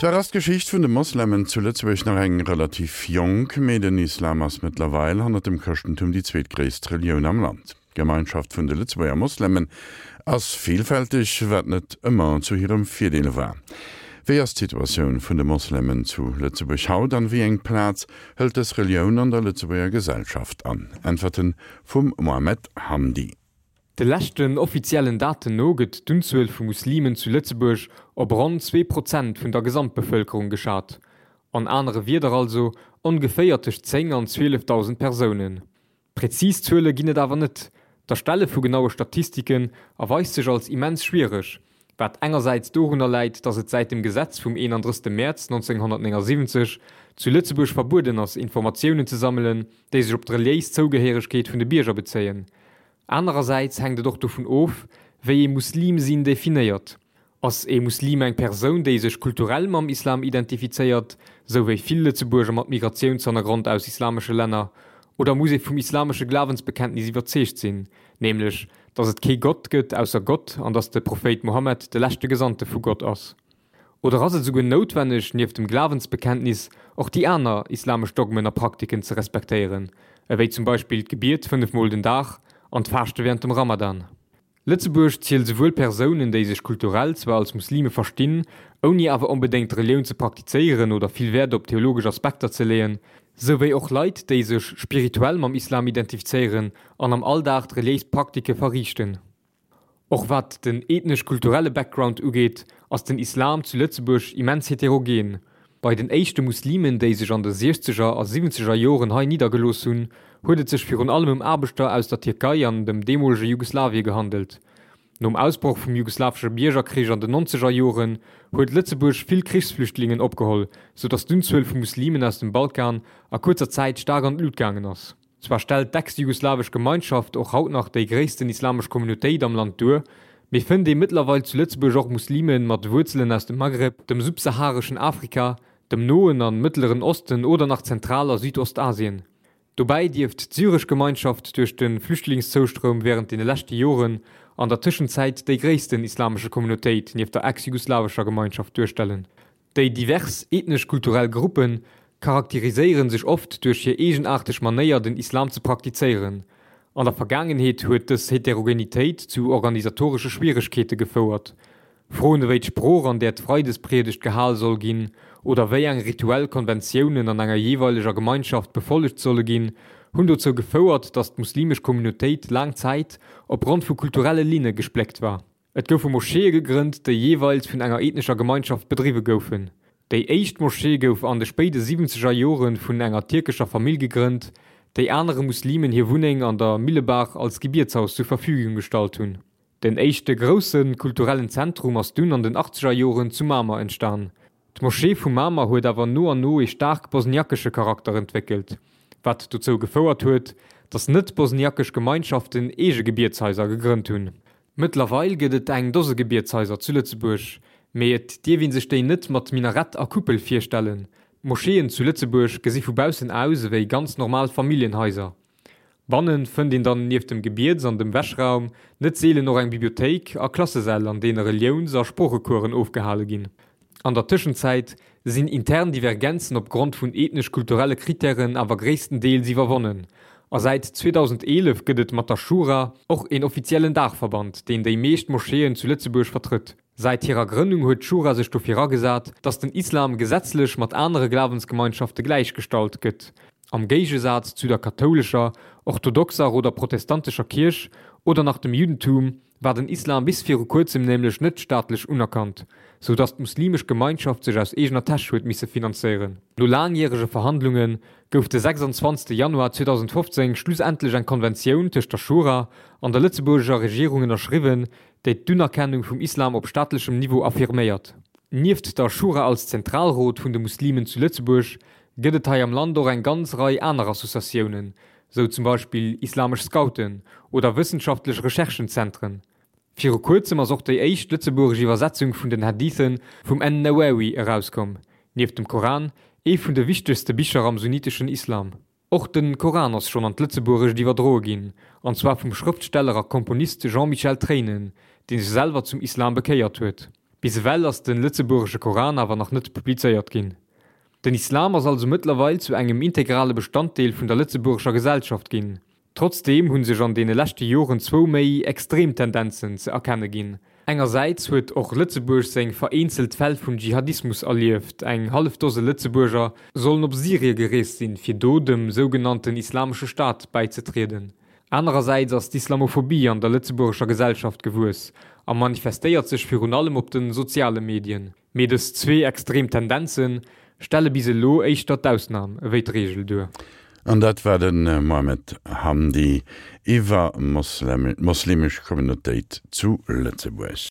Zwar ass d'Geschicht vun de Moslemen zu Lëtzebuerg nach eng relativ jonk, mee den Islam ass mëttlerweil hannert dem Chrëschtentum déi zweetgréisst Relioun am Land. D'Gemeinschaft vun de Lëtzebuerger Moslemen ass villfälteg, wat net ëmmer zu hirem Virdeel war. Wéi ass d'Situatioun vun de Moslemen zu Lëtzebuerg haut an wéi eng Plaz hëlt dës Relioun an der Lëtzebuerger Gesellschaft an? Äntwerten vum Mohamed Hamdi. De leschten offiziellen Daten no gëtt d'Unzuel vu Muslimen zu Lëtzebuerg op ronn 2% vun der Gesamtbevëlkerung geschat. An anere Wierder also ongeféier tëscht 10 an 12.000 Persounen. Präzis Zuele ginn et awer net. D'Erstelle vu genaue Statistiken erweist sech als immens schwiereg, wat engersäits dorunner läit, datt et säit dem Gesetz vum 31 Mäerz 1979 zu Lëtzebuerg verbueden ass, Informatiounen ze sammelen, déi sech op d'reliéis Zougehéiregkeet vun de Bierger bezéien. Anerersäits hänkt et och dovun of, wéi ee Muslim sinn definéiert. Ass ee Muslim eng Persoun, déi sech kulturell mam Islam identifizéiert, sou wéi vill Lëtzebuerger mat Migratiounshannergrond aus islamesche Länner, oder muss ee vum islamesche Glawensbekenntnis iwwerzeegt sinn, nämlech datt et kee Gott gëtt ausser Gott an datt de Prophéit Mohammed de leschte Gesandte vu Gott ass? Oder ass et esouguer noutwenneg, nieft dem Glawensbekenntnis och déi aner islamesch Dogmen a Praktiken ze respektéieren, ewéi zum Beispill d'Gebiet 5 Mol den Dag an d'Faaschte wärend dem Ramadan? Lëtzebuerg zielt esouwuel Persounen, déi sech kulturell zwar als Muslime verstinn, ouni awer onbedéngt d'Relioun ze praktizéieren oder vill Wäert op theologesch Aspekter ze leeën, souwéi och Leit, déi sech spirituell mam Islam identifizéieren an am Alldag d'reliéis Praktike verriichten. Och wat den ethnesch-kulturelle Background ugeet, ass den Islam zu Lëtzebuerg immens heterogen. Bei den éischte Muslimen, déi sech an de siechzeger a siwwenzeger Joren hei niddergelooss hunn, huet et sech virun allem ëm Aarbechter aus der Tierkei an dem deemolege Jugoslawie gehandelt. Nom Ausbroch vum jugoslawesche Biergerkrich an den nonzeger Joren huet Lëtzebuerg vill Krichsflüchtlingen opgeholl, sou datt d'Unzuel vu Muslimen aus dem Balkan a kuerzer Zäit staark an d'Lut gaangen ass. Zwar stellt d'ex-jugoslawesch Gemeinschaft och haut nach déi gréissten islamesch Communautéit am Land duer, mee fënnt ee mëttlerweil zu Lëtzebuerg och Muslime mat Wuerzelen aus dem Maghreb, dem subsahareschen Afrika, dem Noen an Mëttleren Osten oder nach Zentral a Südostasien. Dobäi dierft d'syresch Gemeinschaft duerch de Flüchtlingszouström wärend deene leschte Joren an der Tëschenzäit déi gréissten islamesche Communautéit nieft der ex-jugoslawescher Gemeinschaft duerstellen. Déi divers ethnesch-kulturell Gruppe charakteriséiere sech oft duerch hir eegenaarteg Manéier den Islam ze praktizéieren. An der Vergaangenheet huet dës Heterogenitéit zu organisatoresche Schwieregkeete gefouert. Froen ewéi d'Sprooch an där d'Freidespriedegt gehal soll ginn oder wéi eng rituell Konventiounen an enger jeeweileger Gemeinschaft befollegt solle ginn, hunn dozou gefouert, datt d'muslimesch Communautéit laang Zäit opgrond vu kulturelle Linne gespléckt war. Et goufe Moscheeë gegrënnt, déi jeeweils vun enger ethnescher Gemeinschaft bedriwwe goufen. Déi éischt Moschee gouf an de spéide siwwenzeger Jore vun enger tierkescher Famill gegrënnt, déi anere Muslimen hir Wunneng an der Millebaach als Gebietshaus zur Verfügung gestallt hunn. Den éischte grousse kulturellen Zentrum ass dunn an den achtzeger Joren zu Mamer entstan. D'Moschee vu Mamer huet awer no an no ee staark bosniakesche Charakter entwéckelt, wat dozou gefouert huet, datt net-bosniakesch Gemeinschaften eege Gebietshaiser gegrënnt hunn. Mëttlerweil gëtt et eng Dose Gebietshaiser zu Lëtzebuerg, mee et dierf ee sech déi net mat Minarett a Kuppel virstellen. D'Moscheeën zu Lëtzebuerg gesi vu baussen aus ewéi ganz normal Familljenhaiser. Banne fënnt een dann nieft dem Gebiets an dem Wäschraum net seelen och eng Bibliothéik a Klassesäll an deene Reliouns a Sproochecoursen ofgehale ginn. An der Tëschenzäit sinn intern Divergenzen op Grond vun ethnesch-kulturelle Krittären awer gréisstendeels iwwerwonnen, a säit 2011 gëtt et mat der Schura och een offiziellen Daachverband, deen déi meescht Moscheeën zu Lëtzebuerg vertrëtt. Säit hirer Grënnung huet d'Schura sech dofir agesat, datt den Islam gesetzlech mat anere Glawensgemeinschafte gläichgestallt gëtt, am Géigesaz zu der kathoulescher, orthodoxer oder protestantescher Kierch oder nach dem Juddentum, war den Islam bis viru kuerzem nämlech net staatlech unerkannt, sou datt d'muslimesch Gemeinschaft sech aus eegener Täsch huet misse finanzéieren. No laangjärege Verhandlunge gouf de 26 Januar 2015 schlussendlech eng Konventioun tëscht der Schura an der lëtzebuergescher Regierung ënnerschriwwen, déi d'Unerkennung vum Islam op staatlechem Niveau affirméiert. Nieft der Schura als Zentralrot vun de Muslimen zu Lëtzebuerg gëtt et hei am Land och eng ganz Rei aner Associatiounen, sou zum Beispill islamesch Scouten oder wëssenschaftlech Recherchenzentren. Viru kuerzem ass och déi éischt lëtzebuergesch Iwwersetzung vun den Hadithe vum En-Nawawi erauskomm, nieft dem Koran ee vun de wichtegste Bicher am sunniteschen Islam. Och de Koran ass schonn an d'Lëtzebuergescht iwwerdroe ginn, an zwar vum Schrëftsteller a Komponist Jean-Michel Treinen, dee sech selwer zum Islam bekéiert huet. Bis ewell ass de lëtzebuergesche Koran awer nach net publizéiert ginn. Den Islam ass also mëttlerweil zu engem integrale Bestanddeel vun der lëtzebuergescher Gesellschaft ginn. Trotzdeem hu sech an deene leschte Joren zwou méi extrem Tendenzen ze erkenne ginn. Engersäits huet och Lëtzebuerg seng vereenzelt Fäll vun Dschihadismus erlieft, eng hallef Dose Lëtzebuerger sollen op Syrie gereest sinn, fir do dem sougenannten Islamesche Staat bäizetrieden. Anerersäits ass d'Islamophobie an der lëtzebuergescher Gesellschaft gewuess a manifestéiert sech virun allem op de soziale Medien. Mee dës zwee extrem Tendenze stelle bis elo éischter d'Ausnam ewéi d'Reegel duer. An dat war de Mohamed Hamdi iwwer d'moslemesch Communautéit zu Lëtzebuerg.